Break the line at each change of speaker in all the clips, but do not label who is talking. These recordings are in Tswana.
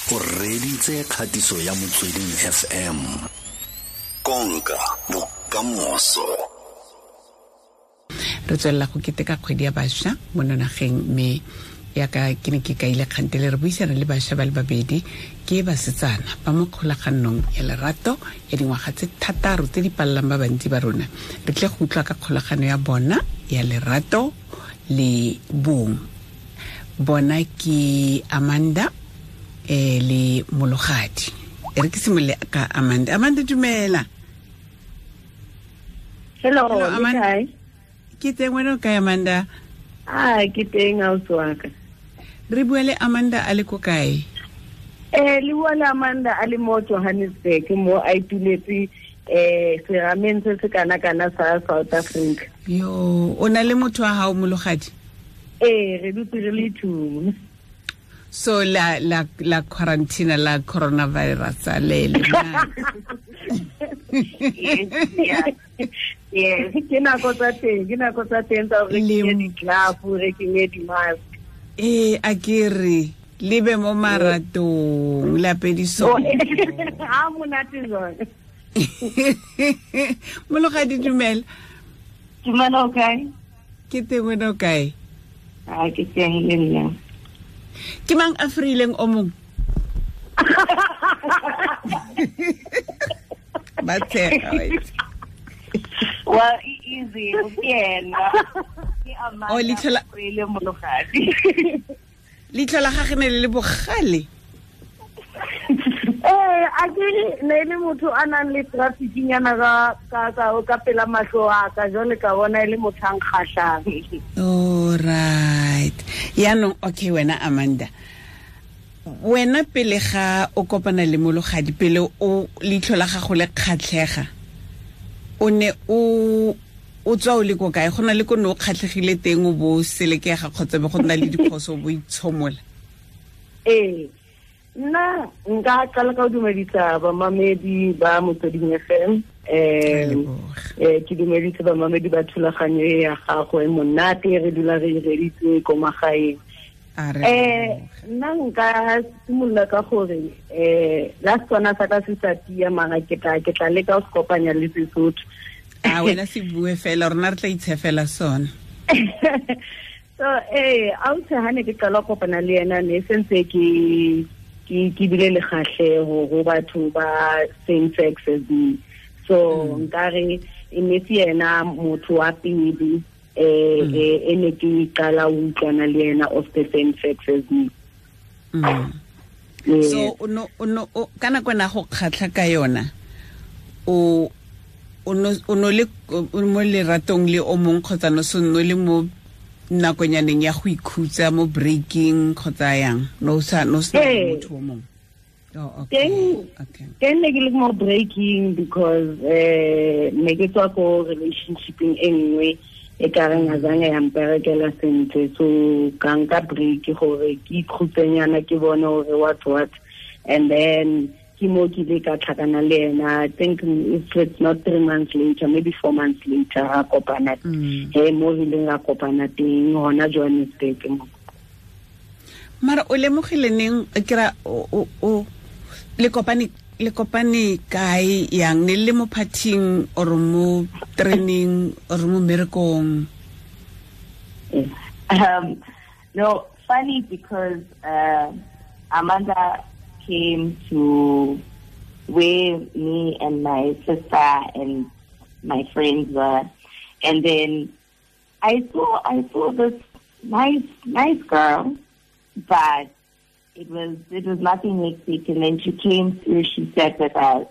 O reditse kgatiso ya Motsweding FM. Konka bokamoso.
Re tswelela go keteka kgwedi ya bašwa mo nageng, mme yaka ke ne ke kaile kgantele re buisana le bašwa ba le babedi ke basetsana ba mo kgolaganong ya lerato ya dingwaga tse 6 tse di palelang ba bantsi ba rona. Re tle go utlwa ka kgolagano ya bona ya lerato le bong. Bona ke Amanda le Mologadi. E re ke simolole ka Amanda. Amanda, dumela.
Hello,
Hello, Amanda.
Kae?
Ke teng, wena o kae, Amanda?
Ah, ke teng, ausi wa ka.
Re bua le Amanda a le ko kae?
Le bua le Amanda a le mo Johannesburg, mo a ituletse serameng se se kana-kana sa South Africa.
Yo, o na le motho wa hao, Mologadi?
Ee, re dutse re le two.
So la la la quarantine la coronavirus le le na.
Yes, ke nako tsa teng, ke nako tsa teng tsa hore re kenye di-glove, re kenye di-mask.
Ee, a ke re le be mo maratong la pediso.
Ha monate jwang.
Mologadi, dumela.
Dumela, o kae?
Ke teng, wena o kae?
A ke teng le nna.
Ke mang a freileng o mong? Ba tshega, wa itse.
Well, e easy, ke ena. Ke Amanda
Oh, leitlho la-
Freile Mologadi.
Leitlho la gagwe ne le le bogale.
A ke ne e le motho a nang le trafficnyana ka pela mahlo a ka, jwale ka bona e le motho a nkgahlang.
All right. Yaanong, okay, wena Amanda, wena pele ga o kopana le Mologadi, pele o leitlho la gago le kgatlhega, o ne o tswa o le ko kae? Go na le ko ne o kgatlhegile teng o bo selekega kgotsa be go nna le diphoso o bo itshomola?
Ee, nna nka qala ka ho dumedisa bamamedi ba Motsweding FM. Ke dumedise bamamedi ba thulaganyo e ya gago e monate, re dula re e reditse ko magaeng.
A re leboge.
Nna nka simolola ka gore, la Setswana sa ka se sa tia, mara ke tla leka ho se kopanya le Sesotho.
A wena se bue fela, rona re tla itshefela sona.
So, ausi, ha ne ke qala ho kopana le yena, ne sentse ke bile le kgahleho ho batho ba same sex as me. So, nkare e ne se yena motho wa pele, e ne ke qala ho utlwana le yena of the same sex as me. Yes.
So, ka nako ena go kgatlha ka yona, o no le, o mo leratong le o mong kgotsa no se no le mo nakonyaneng ya go ikhutsa mo breaking kgotsa yang? No sa, no se na
Ee.
motho o mong? Oh, okay. Okay.
Teng ne ke le mo breaking because ne ke tswa ko relationshipeng e nngwe e ka reng a zange ya mperekela sentle, so ka nka break gore ke ikhutsenyana, ke bone gore what what, and then ke mo ke ile ka tlhakana le ena. I think if it's not 3 months later, maybe 4 months later, ra kopana. He, mo re ileng ra kopana teng hona Johannesburg mo.
Mara o lemogile neng, ke ra, o, le kopane, le kopane kae yang? Ne le mo partying or mo training or mo mmerekong?
No, funny because Amanda came to where me and my sister and my friends were, and then I saw this nice girl, but it was nothing hectic. And then she came through, she sat with us.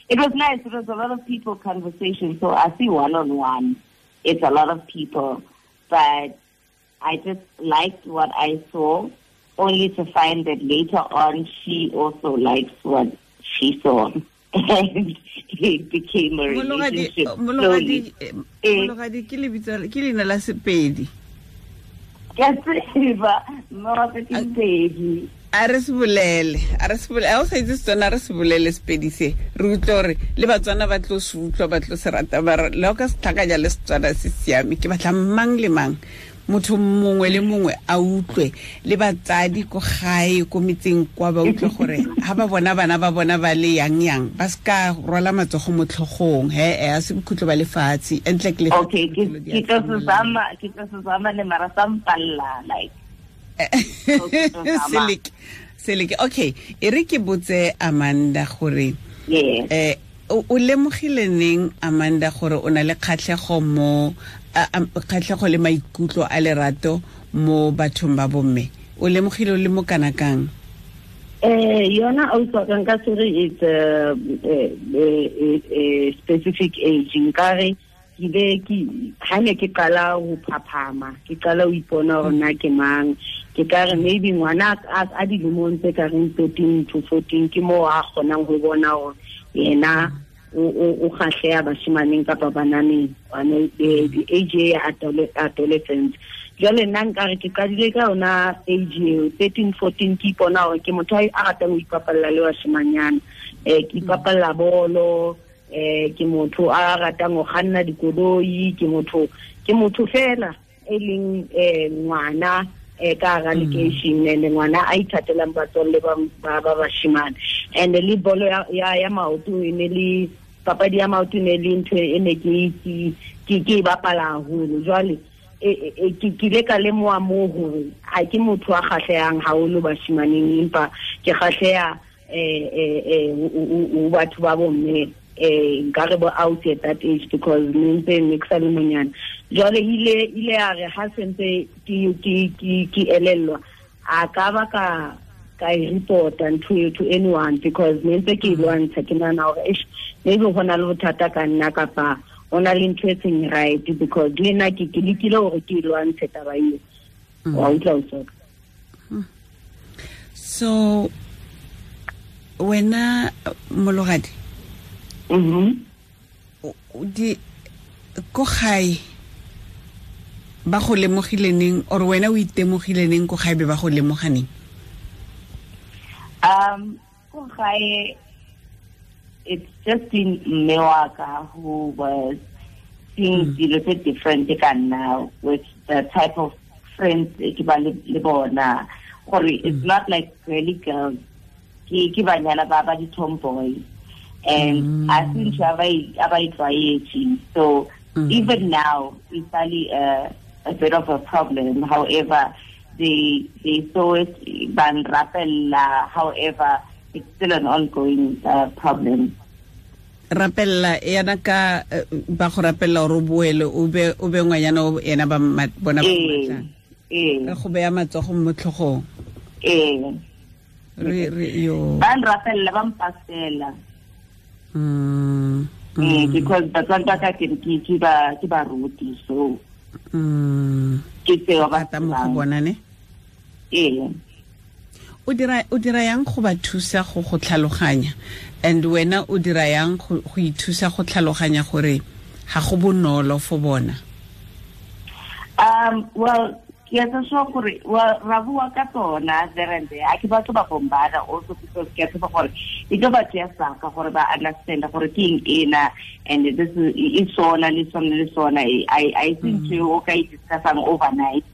It was nice. It was a lot of people conversation. So I see one-on-one. It's a lot of people, but I just liked what I saw, only to find that later on she also likes what she saw. And it became a
Mologadi,
relationship
Mologadi,
slowly.
Mologadi, ke lebitso, ke leina la Sepedi.
Ke a tseba, mma ke Sepedi.
A re se bolele, a re se bolele, ha o sa itse Setswana, a re se bolele Sepedi se. Re utlwe hore le Batswana ba tlo se utlwa, ba tlo se rata, ba re, le ha o ka se tlhakanya le Setswana se siame, ke batla mang le mang. Motho mongwe le mongwe a utlwe le batsadi ko gae ko metseng kwa ba utlwe gore ha ba bona bana ba bona ba le yang yang ba ska rwala matsogo mo tlhogong he a se bokhutlo ba lefatshe entle ke le.
Okay, ke tlo se zama le mara sa mpalla like.
Seleke. Okay, e re ke botse Amanda gore
yes.
O lemogile neng Amanda gore o na le kgatlhego mo kgatlhego le maikutlo a lerato mo bathong ba bomme? O lemogile o le mo kana kang?
Yona ausi ka nka se re it's a specific age. Nkare ke be ke ha ne ke qala ho phaphama, ke qala ho ipona hore nna ke mang, ke ka re maybe ngwana a dilemong tse ka reng 13 to 14 ke moo a kgonang ho bona hore yena o kgahleha bashimaneng kapa bananeng, the age ya adolescence. Jwale nna nkare ke qadile ka yona age eo 13 14, ke ipona hore ke motho a ratang ho ipapalla le bashimanyana, ke ipapalla bolo, ke motho a ratang ho kganna dikoloi, ke motho fela e leng ngwana ka hara lekeishene, and ngwana a ithatelang batswalle ba bashimane. And le bolo ya maoto e ne le papadi ya maoto ne le ntho e ne ke e bapala haholo. Jwale ke ile ka lemoha moo hore ha ke motho a kgahlehang haholo bashimaneng, empa ke kgahleha o batho ba bomme, nkare bo out at that age because ne ntse ne ke sa le monyane. Jwale ile ya re ha sentse ke elellwa, a ka ba ka e reporta ntho eo to anyone because ne ntse ke e lwantsha, ke nahana hore eish, maybe ho na le bothata ka nna kapa ho na le ntho e seng right, because le nna ke lekile hore ke e lwantshe taba eo. Wa utlwa o soka.
So wena Mologadi, di ko gae ba go lemogile neng, or wena o itemogile neng ko gae be ba go lemoga neng?
Ko gae it's just been mme wa ka who was seeing dilo tse different ka nna with the type of friends ke ba le bona, gore it's not like girly girls, ke banyana ba ba di-tomboy, and I think a ba e tlwaetse. So even now it's really a bit of a problem. However, they saw it ban rapella, however it's still an ongoing problem.
Rapella yana ka ba go rapella gore o boele o be ngwanyana o ena ba bona ba matlang. Re go beya matsogo mo tlhogong. Re yo.
Ba nrapella ba mpasela. Because batswadi ba ka ke ba ruti, so ke tseo ba
mo go bona ne. O dira yang go ba thusa go tlhaloganya, and wena o dira yang go ithusa go tlhaloganya gore ga go bonolo for bona?
Well, ke a tswa gore well ra bua ka tsona there and there. A ke batho ba bombada also because ke a tseba gore e tlo ba tseya saka gore ba understand gore ke eng ena, and this is sona le sona le sona. I think o ka e discussang overnight.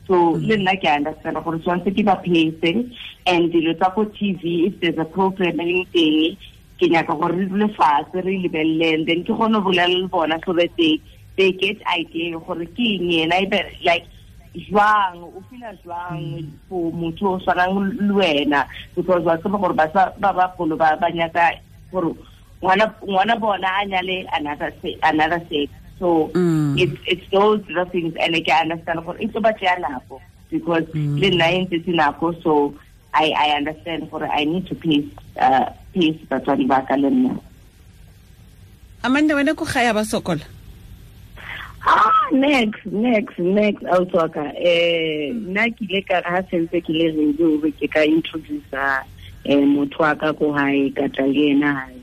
So le nna ke understand gore tshwanetse ke ba pace, and dilo tsa ko TV, if there's a program e teng, ke nyaka gore re dule fatshe re lebelele, and then ke kgone go bolela le bona so that they get idea gore ke eng ena, ebe like jwang o feel jwang for motho o tshwanang le wena, because wa tseba gore ba bagolo ba nyaka gore ngwana bona a nyale another sex. So it's those the things, and I can understand gore e tlo ba tseya nako because le nna e ntse nako, so I understand gore I need to pace batswadi ba ka le nna.
Amanda, wena ko gae ba sokola?
Next ausi ka nna ke ile ka ha sentse ke le ready hore ke ka introduce motho wa ka ko hae, ka tla le yena hae.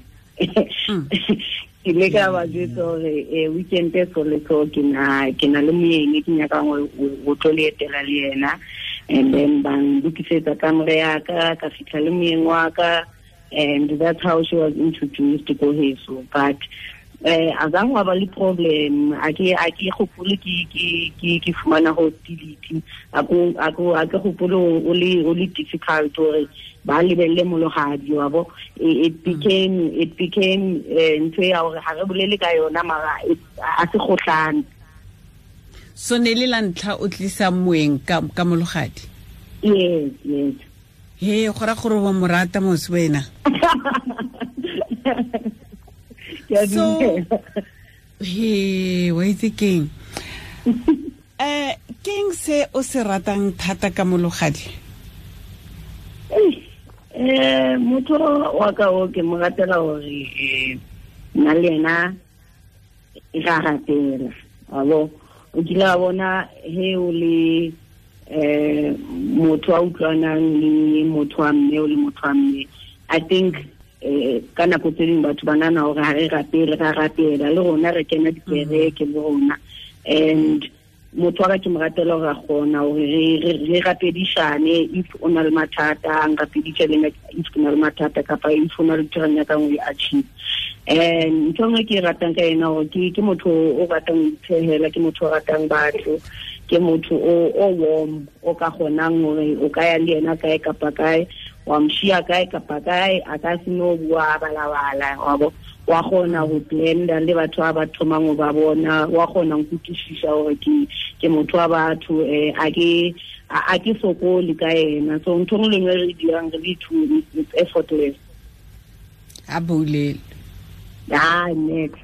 Ke ile ka ba jwetsa hore weekend e so le so ke na le moyeng ke nyakang ho tlo le etela le yena, and then ba nlokisetsa kamore ya ka fihla le moyeng wa ka, and that's how she was introduced to heso. But Azang wa ba le problem a ke gopole ke fumana hostility a ke gopole o le difficult gore ba lebelle Mologadi wa bo. It became ntho ya gore ga re bolele ka yona mara a se gotlane.
So ne le la ntlha o tlisa moeng ka Mologadi?
Yes.
He go ra gore wa morata mos wena. So he wa itse keng? Keng se o se ratang thata ka Mologadi?
Motho wa ka o ke mo ratela gore nna le ena ra ratela. Abo o kile wa bona he o le motho a utlwanang le motho wa mme o le motho wa mme. I think ka nako tse dingwe batho ba nana gore ga re rapele ra rapela le rona re kena dikereke le rona. And motho wa ka ke mo ratela gore a kgona gore re rapedišane if o na le mathata a nrapeditše le nna if ke na le mathata kapa if o na le ntho re nyakang o e achieve. And ntho nngwe ke e ratang ka ena gore ke motho o ratang ho itshehela, ke motho o ratang batho, ke motho o warm o ka kgonang hore o ka ya le yena kae kapa kae, wa mshia kae kapa kae, a ka se no bua balabala wa bo. Wa kgona go blenda le batho ba ba thomang go ba bona, wa kgona go kutlwisisa gore ke motho wa batho, a ke sokole ka ena. So ntho nngwe le nngwe re dirang re le two, it's effortless.
A bolele.
Next.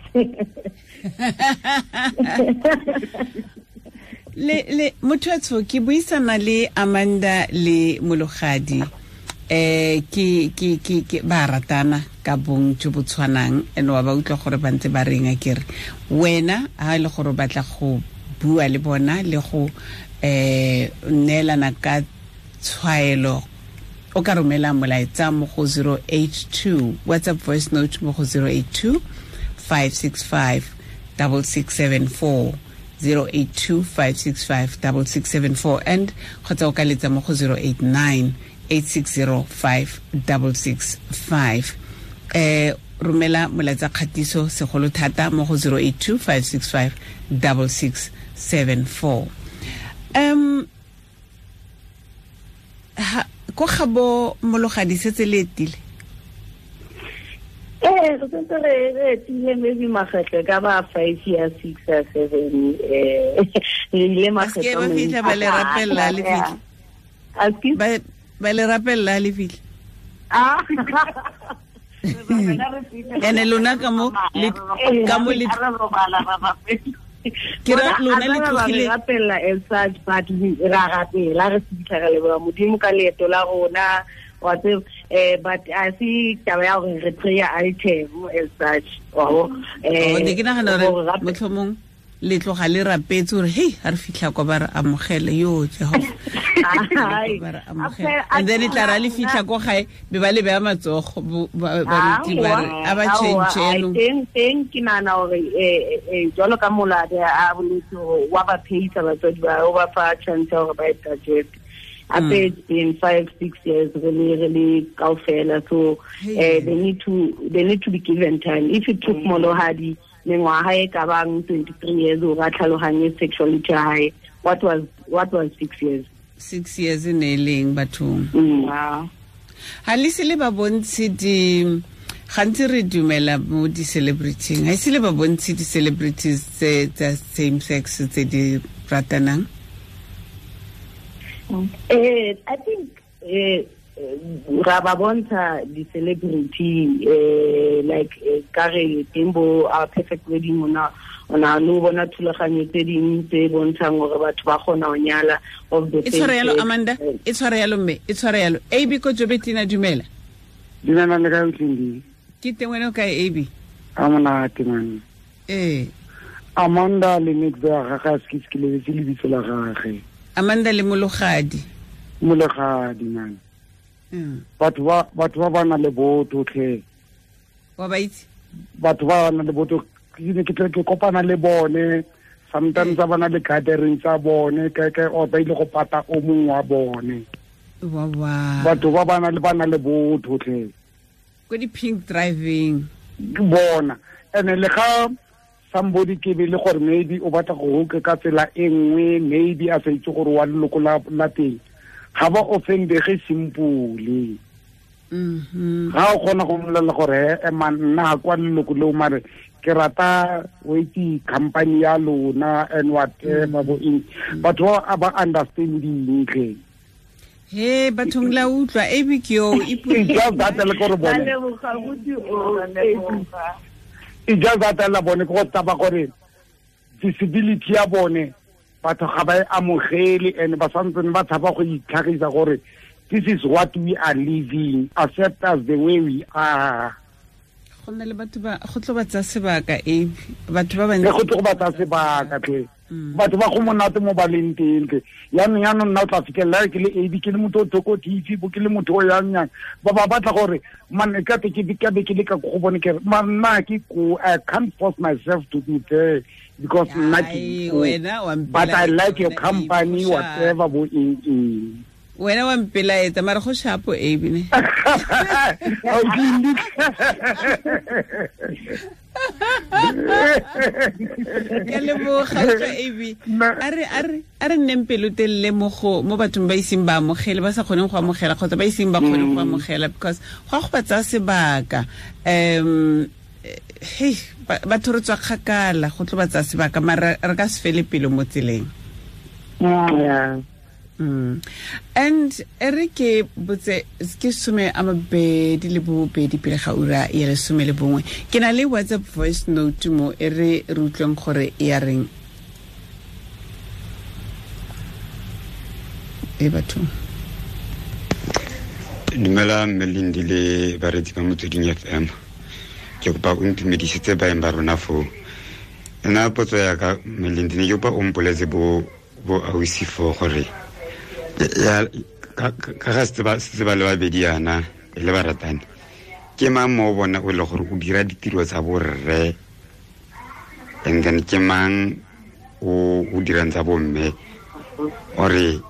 Le motho ke buisana le Amanda le Mologadi. Ke ba ratana ka bong jo bo tshwanang ene wa ba utlwa gore ba ntse ba reng a kere wena ha ile gore batla go bua le bona le go neelana ka tshwaelo o ka romela molaetsa mo go 082 WhatsApp voice note mo go 082 565 6674 082 565 6674 and kgotsa o ka letsa mo go 089 860 5665. Romela molaetsa kgatiso segolo thata mo go 082 565 6674. Ko gabo Mologadi setse le etile?
Re sentse re etile maybe makgetlho ka ba 5 years, 6 or 7. Re ile makgetlho
ba fitlha ba le rapella le fitlha. Ba le rapella le fitlha. Ene lona ka mo le ke ra lona le tlogile
rapella as such, but ra rapela re fitlha re leboha Modimo ka leeto la rona wa tseba, but a se taba ya gore re prayer item as such.
Ne ke nagana gore motlhomong le tloga le rapetse gore hey ha re fitlha kwa ba re amogele yo Jehova ba re amogele, and then e tla ra le fitlha ko gae be ba le beya matsogo baruti ba re a ba change no
teng ke nana gore jwalo ka Molade a boletse wa ba pheisa batswadi ba o ba fa chance gore ba e digest. Ape it's been 5-6 years really kaofela, so they need to be given time. If it took Mologadi mengwaga e ka bang 23 years o ra tlhaloganye sexuality ya hae, what was 6 years?
6 years e ne leng bathong.
Wow.
Ha le se le ba bontshe di gantsi re dumela mo di-celebrityng, ha ise le ba bontshe di-celebrities tsa same sex tse di ratanang?
I think ra ba bontsha di-celebrity like ka re teng bo Our Perfect Wedding ona no bona thulaganyo tse dingwe tse bontshang gore batho ba kgona go nyala of the
same. E tshware yalo Amanda, e tshware yalo mme, e tshware yalo. AB ko Jobetina, dumela.
Dumela le kae Tlindi?
Ke teng, wena o kae AB?
A monate man. Amanda le Nick ba ga ga se ke lebetse lebitso la gagwe.
Amanda le Mologadi.
Mologadi man. Batho ba na le botho tlhe.
Wa ba itse?
Batho ba na le botho ke tle ke kopana le bone sometimes ba na le gathering tsa bone ke o ba ile go pata o mongwe wa bone.
Wa
batho ba na le botho tlhe.
Ko di pink driving.
Bona And le ga somebody ke be le gore maybe o batla go hoka ka tsela e nngwe, maybe a sa itse gore wa leloko la teng, ga ba offendege simpole. Ga o kgona go mmolelela gore man nna kwa leloko leo mare ke rata o itse company ya lona and whatever bo eng, batho ba understanding tle.
He bathong la utlwa Abby ke yo
just that le gore bone e just that la bone go taba gore disability ya bone batho ga ba e amogele and ba santsene ba tshaba go itlhagisa gore this is what we are living, accept us the way we are.
Go nna le batho ba go tlo ba tsa sebaka Abby, batho ba bantsi
go tlo ba tsa sebaka tle. Batho ba go monate mo baleng teng tle. Yaanong nna o tla fitlhela ke le Abby ke le motho o thoko TV bo ke le motho o yang yang ba ba batla gore man e ka te ke ka be ke le ka go bone ke man nna ke ko I can't force myself to be there because nna ke but I like your company whatever bo eng.
Wena wa mpelaetsa mara go shapo Abby ne. Ke leboga utlwa Abby. A re nneng pelotelele mo bathong ba iseng ba amogele, ba sa kgoneng go amogela kgotsa ba iseng ba kgone go amogela, because go a go ba tsaya sebaka. Hey batho re tswa kgakala, go tlo ba tsaya sebaka mara re ka se fele pelo mo tseleng.
Yeah.
And ere ke botse ke 22 pele ga ura ya 11. Ke na le WhatsApp voice note mo e re re utlweng gore e ya reng. E batho.
Dumela Melindi le baretsi ba Motsweding FM. Ke kopa o ntumedisetse baeng ba rona foo. Nna potso ya ka Melindi ne ke kopa o mpoletse bo ausi foo gore ya ka ga se ba le babedi yana e le baratani, ke mang mo bona o le gore o dira ditiro tsa borre and then ke mang o dirang tsa bomme, ore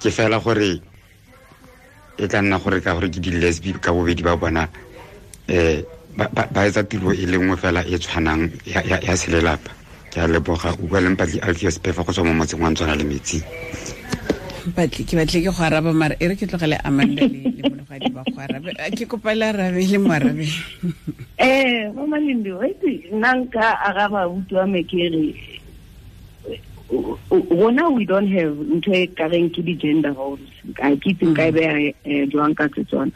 ke fela gore e tla nna gore ka gore ke di-lesbi ka bobedi ba bona ba etsa tiro e le nngwe fela e tshwanang ya selelapa. Ke a leboga. O bua le Mpatli Alfios Pefa go tswa mo motseng wa Ntswana le Metsi.
Mpatli ke batle ke go araba mara e re ke tlogele Amanda le Mologadi ba go arabe. Ke kopa le arabe le mo arabe.
Mama Lindi, wait, nna nka araba abuti wa me ke re rona we don't have ntho e kareng ke di-gender roles. Ga ke itse nka e beya jwang ka Setswana.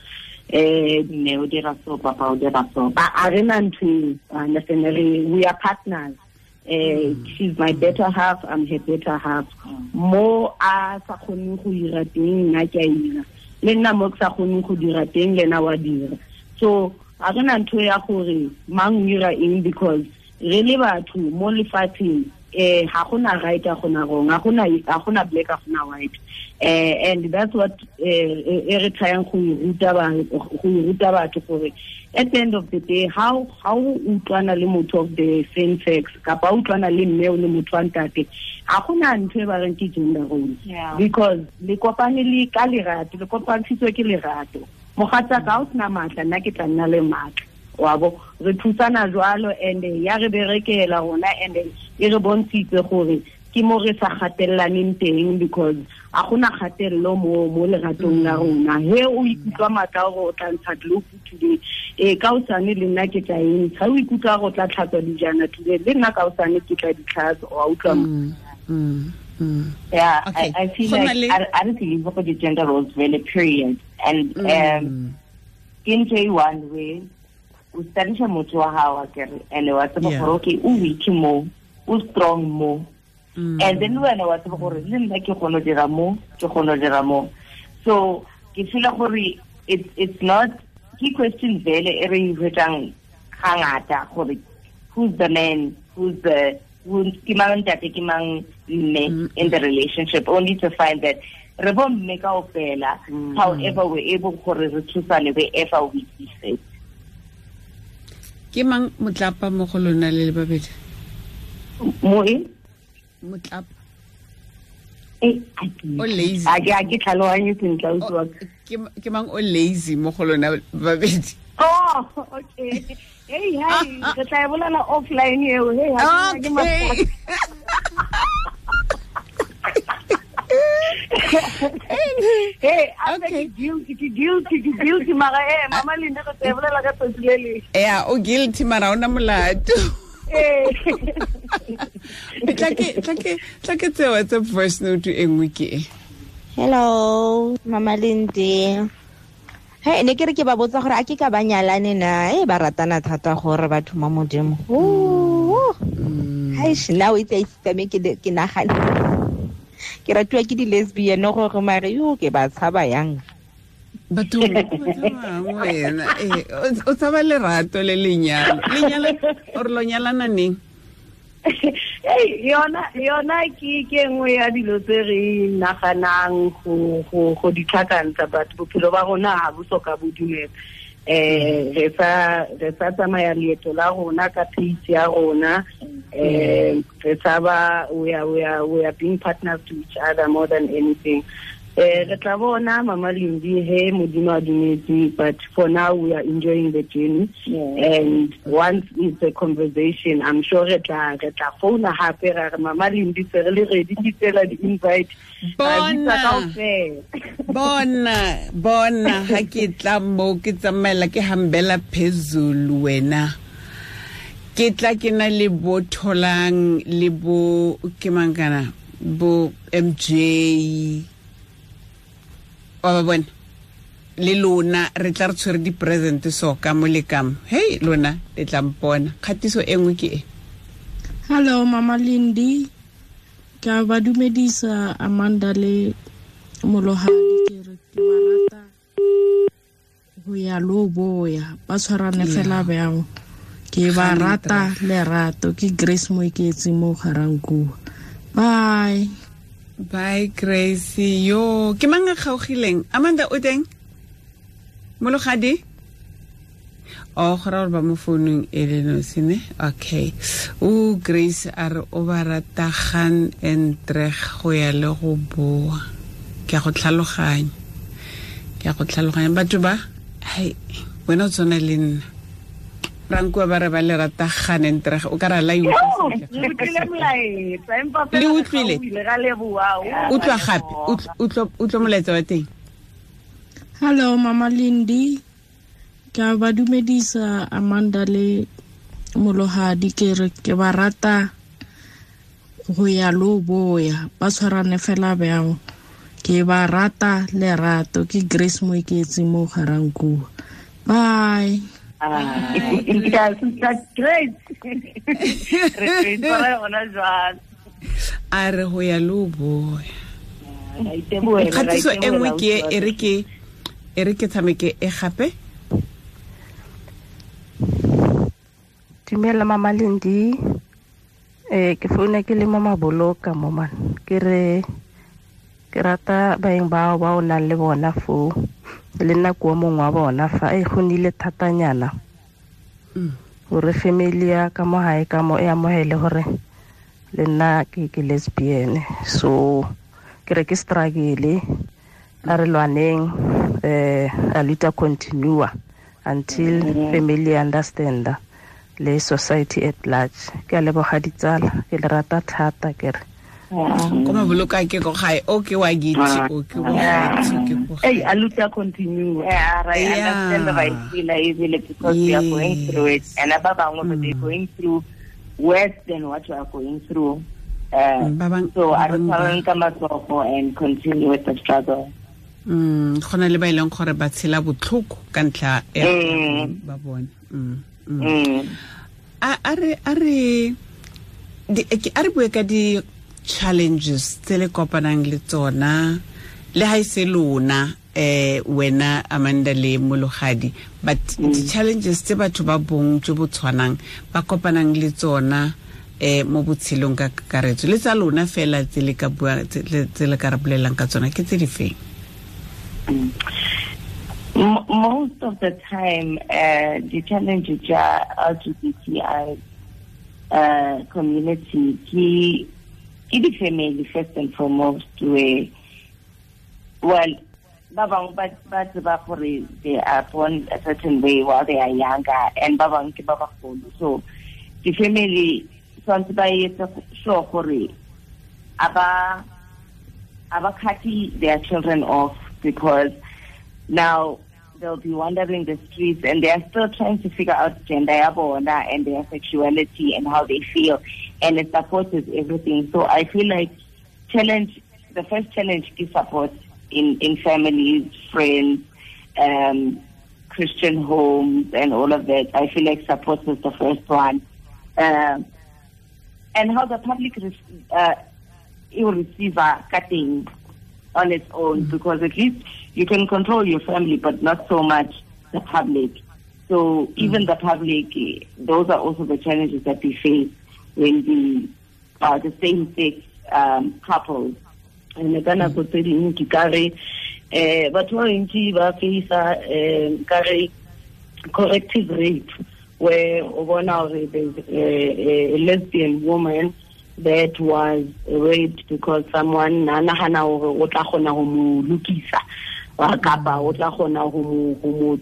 Mme o dira so, papa o dira so.
A re na ntho eo, understand, we are partners. She's my better half, I'm her better half. Mo a sa kgoneng go dira teng, nna ke a ira. Le nna mo ke sa kgoneng go dira teng, le ena wa dira. So a re na ntho ya gore mang o dira eng, because re le batho mo lefatsheng ga gona right ga gona wrong, ga gona black ga gona white. And that's what e re tryang go ruta batho gore at the end of the day how utlwana le motho of the same sex kapa utlwana le mme o le motho wa ntate, ga gona ntho e ba reng ke gender roles. Because le kopane le ka lerato, le kopantshitswe ke lerato. Mogatsa ka o sena matla, nna ke tla nna le matla. Wa bo re thusana jwalo and ya re berekela rona and e re bontshitse gore ke mo re sa gatellaneng teng, because a gona kgatello mo leratong la rona. He o ikutlwa matla gore o tla ntsha globe today, ka osane le nna ke tla e ntsha. O ikutlwa gore o tla tlhatswa dijana today, le nna ka osane ke tla di tlhatswa. Wa utlwa?
Yeah, okay. I feel like I don't believe for the gender roles really, period. And in J1 way o studyisha motho wa hao akere, and wa tseba gore okay o weak mo, o strong mo. And then wena wa tseba gore le nna ke kgona dira mo, ke kgona dira mo. So ke feel gore it's not key question vele e re hwetang hangata gore who's the man, who's the ke mang ntate, ke mang mme in the relationship, only to find that re bo mme kaofela, however we're able gore re thusane wherever we see fit.
Ke mang motlapa mo go lona le le babedi?
Mo e?
Motlapa.
O
lazy.
A ke tlhaloganye sentle, ausi wa ka.
Ke mang o lazy mo go lona babedi?
Oh, okay. Hey, hey, re tla e bolela offline eo. Hey, ha ke
Okay.
Hey, a
Okay.
ke guilty, ke guilty, ke guilty mara mama Linda re tla e bolela ka tsatsi le leng.
Ya, o guilty mara ona molato.
Eh.
Tla ke tse WhatsApp voice note e nngwe ke e.
Hello, Mama Lindy. Hey, ne ke re ke ba botsa gore a ke ka ba nyalane na? Ba ratana thata gore batho mo Modimo. Hai, now it's a system ke nagana. Ke ratiwa ke di-lesbian gore mare yo ke ba tshaba yang.
Batho ba tshabang wena. O tshaba lerato le lenyalo. Lenyalo or lo nyalana neng?
Hey, yona ke nngwe ya dilo tse re naganang go di tlhakantsha, but bophelo ba rona ha bo soka bo dumela. Re sa tsamaya leeto la rona ka pace ya rona. Re tshaba we are being partners to each other more than anything. Re tla bona Mama Lindy he Modimo a dumetse, but for now we are enjoying the journey. And once it's a conversation, I'm sure re tla founa hape ra re Mama Lindy se re le ready ke tsela di invite.
Bona ha ke tla mo ke tsamaela ke hambela phezulu wena. Ke tla ke na le bo Tholang le bo ke mangana bo MJ wa ba bona le lona re tla re tshwere di-present so ka mo le ka mo. Hey lona le tla mpona. Kgatiso e nngwe ke e.
Hello Mama Lindy, ka ba dumedisa Amanda le Molohadi, ke re ke ba rata go ya lo boya ba tshwarane fela bjang. Ke ba rata lerato. Ke Grace Moiketsi mo Garankuwa. Bye.
Bye Grace. Yo, ke mang a kgaogileng? Amanda o teng? Mologadi? Oh, go ra gore ba mo founung e le nosi ne? Okay. O Grace a re o ba rata gaan en treg go ya le go boa. Ke a go tlhaloganya. Batho ba, hai, wena o tshwana le nna. Rankuwa ba re ba le rata gaan en treg. O ka ra la e utlwa sentle.
Le
utlwile. Utlwa gape. Utlwa molaetsa wa teng.
Hello Mama Lindy, ka ba dumedisa Amanda le Molohadi, ke re ke ba rata go ya lo boya ba tshwarane fela bjang. Ke ba rata lerato. Ke Grace Moiketsi mo Garankuwa. Bye.
Great.
A re go ya lo boya. Kgatiso e nngwe ke e re ke tshameke e gape.
Dumela Mama Lindy. Ke founa ke le mo Maboloka mo man. Ke re ke rata baeng bao ba o nang le bona foo. Le nna ko mongwe wa bona fa e go nile thatanyana. Gore family ya ka mo hae ka mo e amohele gore le nna ke lesbian. So ke re ke struggle a re lwaneng a luta continue until family understand le society at large. Ke a leboga ditsala, ke le rata thata ke re.
Ko Maboloka ke ko gae o ke wa gitse o ke wa gae ke ko gae.
Hey, a luta continue.
Yeah, right. I understand the right feel easily because we are going through it, and ba bangwe they're going through worse than what we are going through. So a re tshwareng ka matsogo and continue with the struggle.
Go na le ba e leng gore ba tshela botlhoko ka ntlha ya ba bone. A re bue ka di challenges tse le kopanang le tsona le ha ise lona wena Amanda le Mologadi, but di challenges tse batho ba bong jo bo tshwanang ba kopanang le tsona mo botshelong ka kakaretso le tsa lona fela tse le ka bua tse le ka re bolelang ka tsona ke tse di feng?
Most of the time, the challenges are LGBTI community ke the family first and foremost. Where, well, ba bangwe ba tseba gore they are born a certain way while they are younger, and ba bangwe ke ba bagolo. So the family tshwanetse ba etse sure gore aba cut their children off, because now they'll be wandering the streets and they are still trying to figure out gender ya bona and their sexuality and how they feel, and it support is everything. So I feel like the first challenge is support in families, friends, Christian homes and all of that. I feel like support is the first one. And how the public will receive a cutting on its own, because at least you can control your family, but not so much the public. So even the public, those are also the challenges that we face when we are the same-sex couples.
And ka nako tse dingwe ke ka re batho ba bantsi ba face-a ka re corrective rape, where o bona hore there's a lesbian woman that was raped because someone na nahana hore o tla kgona ho mo lokisa, kapa o tla kgona ho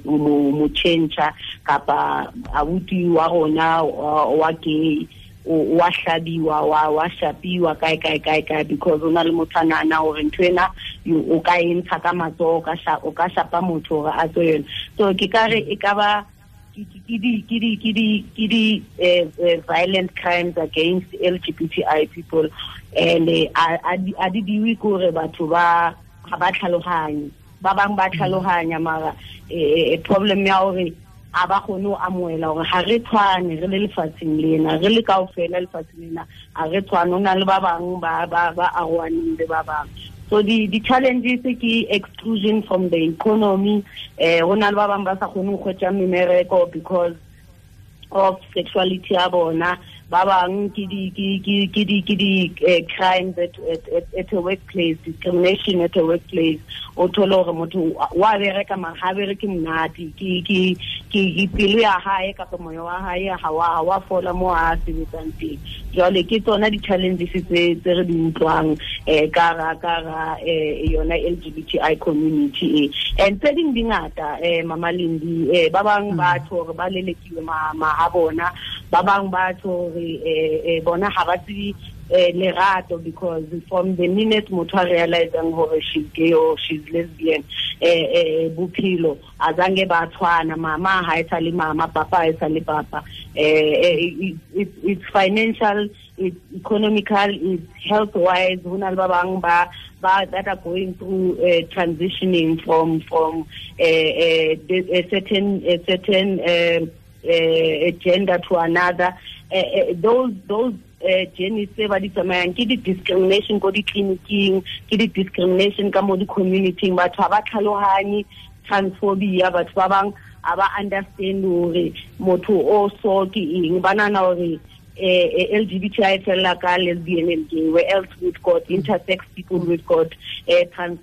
mo change, kapa abuti wa rona wa gay wa hlabiwa wa shapiwa kae kae kae kae, because o na le motho a nahana hore ntho ena o ka e ntsha ka matsoho, o ka shapa motho hore a tswe yona. So ke ka re e ka ba di violent crimes against LGBTI people, and a di diwe kore batho ba ga ba tlhaloganye, ba bang ba tlhaloganya, mara problem ya hore a ba kgone ho amohela hore ha re tshwane re le lefatsheng lena, re le kaofela lefatsheng lena, ha re tshwane, ho na le ba bang ba arohaneng le ba bang. So the challenges ke exclusion from the economy, ho na le ba bang ba sa kgone ho kgwetja memereko because of sexuality ya bona, ba bang ke di crimes at a workplace, discrimination at a workplace. O thole hore motho wa bereka mara ha bereke monate, ke pelo ya hae kapa moya wa hae ha wa fola mo a sebetsang teng. Jwale ke tsona di-challenges tse re di utlwang ka ra yona LGBTI community e. And tse ding di ngata, Mama Lindi, ba bang ba tjho hore ba lelekiwe ma ha bona, ba bang ba tjho hore bona ha ba tsebe lerato, because from the minute motho a realizang hore she's gay or she's lesbian, bophelo azange ba tshwana, mama ha e sa le mama, papa ha e sa le papa. It's financial, it's economical, it's health wise. Ho na le ba bang ba that are going through transitioning from a certain gender to another. Those journeys tse ba di tsamayang ke di-discrimination ko di-clinicing, ke di-discrimination ka mo di-community-ing, batho ha ba tlhalohanye transphobia, batho ba bang ha ba understand hore motho o so ke eng, ba nahana hore LGBTI fella ka lesbian and gay, where else we've got intersex people, we've got trans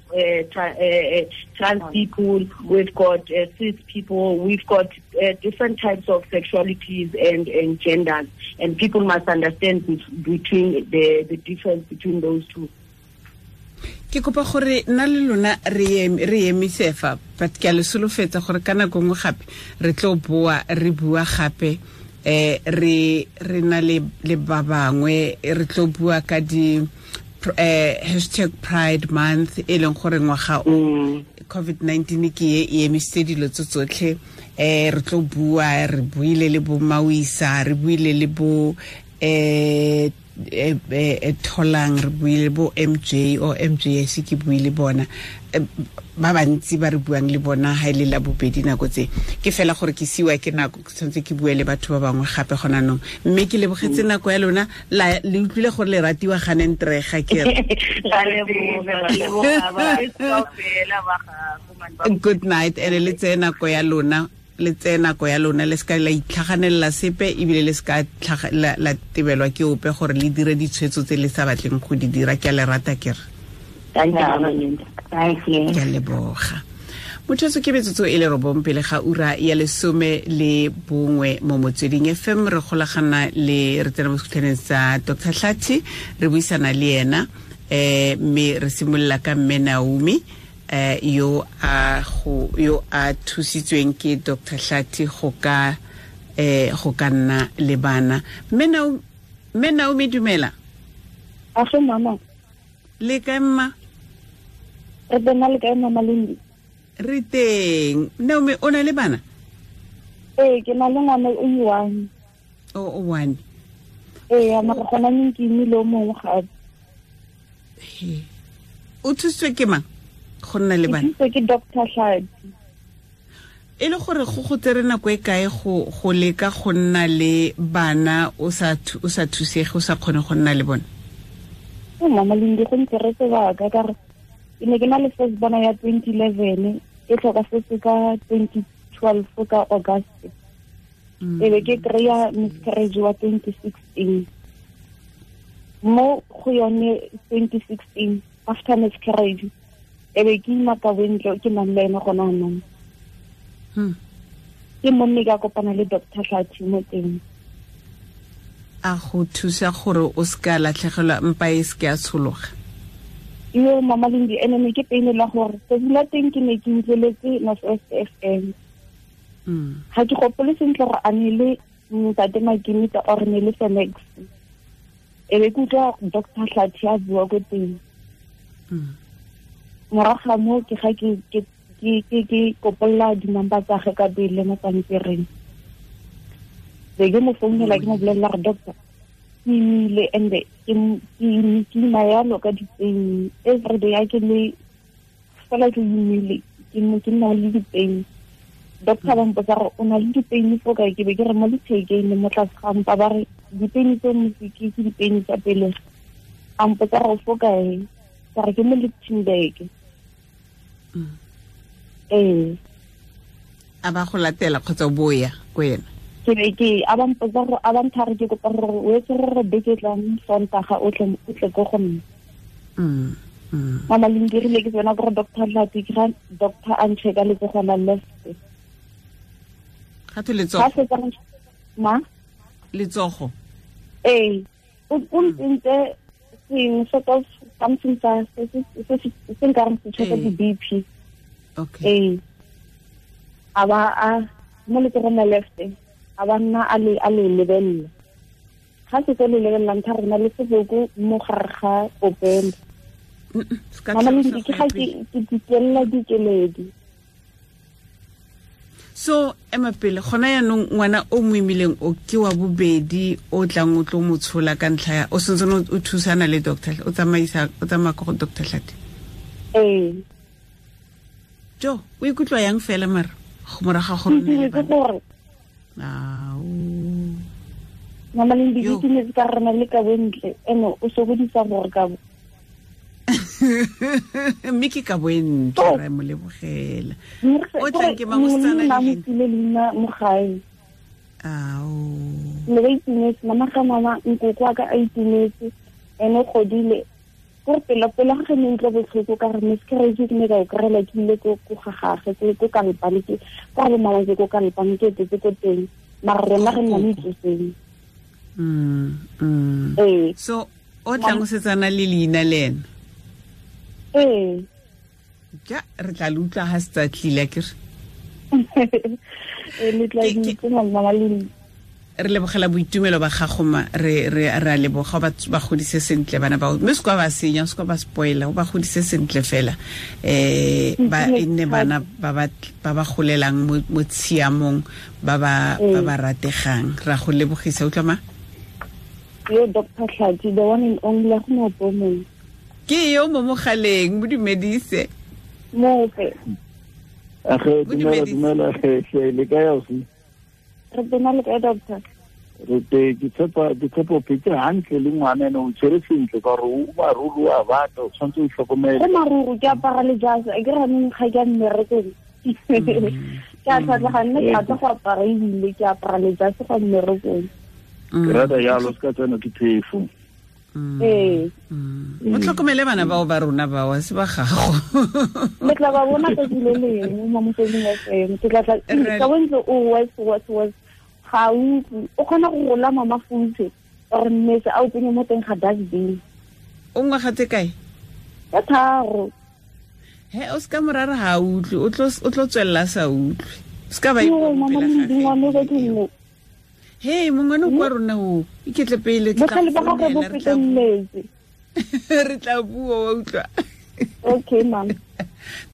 people, we've got cis people, we've got different types of sexualities and genders, and people must understand between the difference between those two.
Ke kopa gore nna le lona re emise fa, but ke a le solofetsa gore ka nako nngwe gape re tlo boa re bua gape, re na le ba bangwe, re tlo bua ka di hashtag Pride Month, e leng gore ngwaga o COVID-19 ke e emisitse dilo tse tsotlhe. Re tlo bua, re buile le bo Mawisa, re buile le bo Tholang, re buile bo MJ o MJS, ke buile bona ba bantsi ba re buang le bona ha ile la bobedi nako tse. Ke fela gore ke siwa ke nako, ke tshwanetse ke bue le batho ba bangwe gape gona nong, mme ke lebogetse nako ya lona, le utlwile gore le ratiwa ganentrega ke re. Good night, ene le tseye nako ya lona, le tseye nako ya lona, le seka la itlhaganela sepe, ebile le seka la tebelwa ke ope gore le dire ditshwetso tse le sa batleng go di dira. Ke a le rata ke re.
Thank you.
Ke a leboga. Motho ke metsotso e le 9 pele ga ura ya 11 mo Motsweding FM. Re golagana le re tsena mo sekhutlhaneng sa Dr. Hlathi, re buisana le ena, mme re simolola ka mme Naomi. Yo a thusitsweng ke Dr. Hlathi go ka nna le bana. Mme Naomi dumela.
Afe mama.
Le kae mma?
Re teng, le kae mama Lindi?
Re teng. Naomi, o na le bana?
Ee, ke na le ngwana o one.
O one.
Ee, mara gona neng ke imile o mongwe gape.
O thusitswe ke mang go nna le bana?
Ke thusitswe ke Dr. Hlathi.
E le gore go tsere nako e kae go leka go nna le bana o sa thusege, o sa kgone go nna le bone?
Mama Lindi, go ntsere sebaka ka gore ke ne ke na le first bona ya 2011, e tlhokafetse ka 2012 ka August. E be ke kry-a miscarriage wa 2016. Mo go yone 2016 after miscarriage, e be ke ima ka bontle ke nang le ene gona anong. Ke monne ka kopana le Dr. Hlathi mo teng.
A go thusa gore o se ka latlhegelwa mpa e se ke a tshologa?
Yo mama Lindi, ene ne ke pain la gore tsatsi la teng ke ne ke utlweletse North West FM. Ga ke gopole sentle gore a ne le ntate Makimita or ne le Fenex. E be ke utlwa Dr. Hlathi a bua ko teng. Morago ga moo ke ga ke kopolla di-number tsa gage ka pele mo pampiring. Be ke mo founela, ke mo bolelela gore doctor, ke imile and-e ke ima yalo ka di-pain everyday. A ke le fela ke imile, ke nna le di-pain. Doctor ba mpotsa gore o na le di-pain fo kae, ke be ke re mo lethekeng le mo tlase ga mpa. Ba re di-pain tse motse ke di-pain tsa pelegi. A mpotsa gore fo kae, ka re ke mo Lichtenburg. Ee.
A ba go latela kgotsa o boya ko ena?
Ke be ke a ba mpotsa gore a ba nthare ke kopa gore o etse gore beke tlang Sontaga o tle ko go nna. Mama Lindi, rile ke tsena gore Dr. Hlathi, ke ga doctor a ncheka letsogo la left.
Ga twe letsogo?
Ma?
Letsogo?
Ee. O ntsentse sengwe sort of something sa se nkareng se checka di-BP.
Okay.
Ee. A ba a mo letsogong la left, a ba nna a le lebelela. Ga se tse le lebelelang tha rena le seboko mo gare ga popelo. Mama Lindi, ke ga ke dikelela dikeledi.
So ema pele gona yaanong ngwana o mo imileng o ke wa bobedi o tlang o tlo mo tshola ka ntlha ya o sentse o thusana le doctor, o tsamaya ko go Dr. Hlathi?
Ee.
Jo, o ikutlwa yang fela mara go moraga gore nne le bana?
Mama Lindi, ke ne ka rena le ka bontle ene o sokodisa gore ka bo.
Mme ke ka bontle, re mo lebogela. O tlang ke mangosetsana
le leina mo gae.
Ao.
Ne ba itumetse, mama ga mama nkoko wa ka a itumetse, ene o godile. Gore pela pela ga ne utlwa botlhoko ka re miscarriage ke ne ka o kry-ela ke ile ko ga gagwe, ko Kalpane, ke kwa bo mama ke ko Kalpane, ke etetse ko teng. Mara rona re nna mo itsoseng. Ee.
So o tlang o setsana le leina le ena?
Ee.
Ja, re tla le utlwa ha se tsa tlile akere.
Ee, le tla itse mama Lindi.
Re lebogela boitumelo ba gago ma, re a leboga ba godise sentle bana bao. Mme se kwa ba senya, se kwa ba spoiler, o ba godise sentle fela. Ba e nne bana ba ba golelang mo tshiamong, ba ba rategang. Ra go lebogisa, utlwa ma?
Yo Dr. Hlathi, the one and only, go mo pomong.
Ke yo mo mogaleng, mo dumedise.
Mofe.
Age dumela le kae ausi?
Re tena le kae doctor?
Re te ke tshepa o phetse hantle le ngwana ene o tshwere sentle ka gore o maruru a batla, o tshwanetse o itlhokomele.
Go maruru ke apara le jase, a ke re anong ga ke a mmerekong. Ke a tlhatlhoga nne ke rata go apara ebile ke apara le jase go mmerekong.
Ke rata jalo, se ka tsena ke phefo.
Ee.
O tlhokomele bana bao ba rona bao, se ba gago.
Le tla ba bona tsatsi le lengwe mo Motsweding FM. Ke tla tla ka bontle o was ga utlwe. O kgona go rola mama futshe or mmetse a o tsenye mo teng ga dustbin.
O ngwaga tse kae?
Ka 3.
He o ska morara ha utlwe, o tlo tswella sa utlwe. Ska ba
ipona.
Hey, mongwe kwa rona o iketle pele ke tla re tla bua wa utlwa.
Okay, ma'am.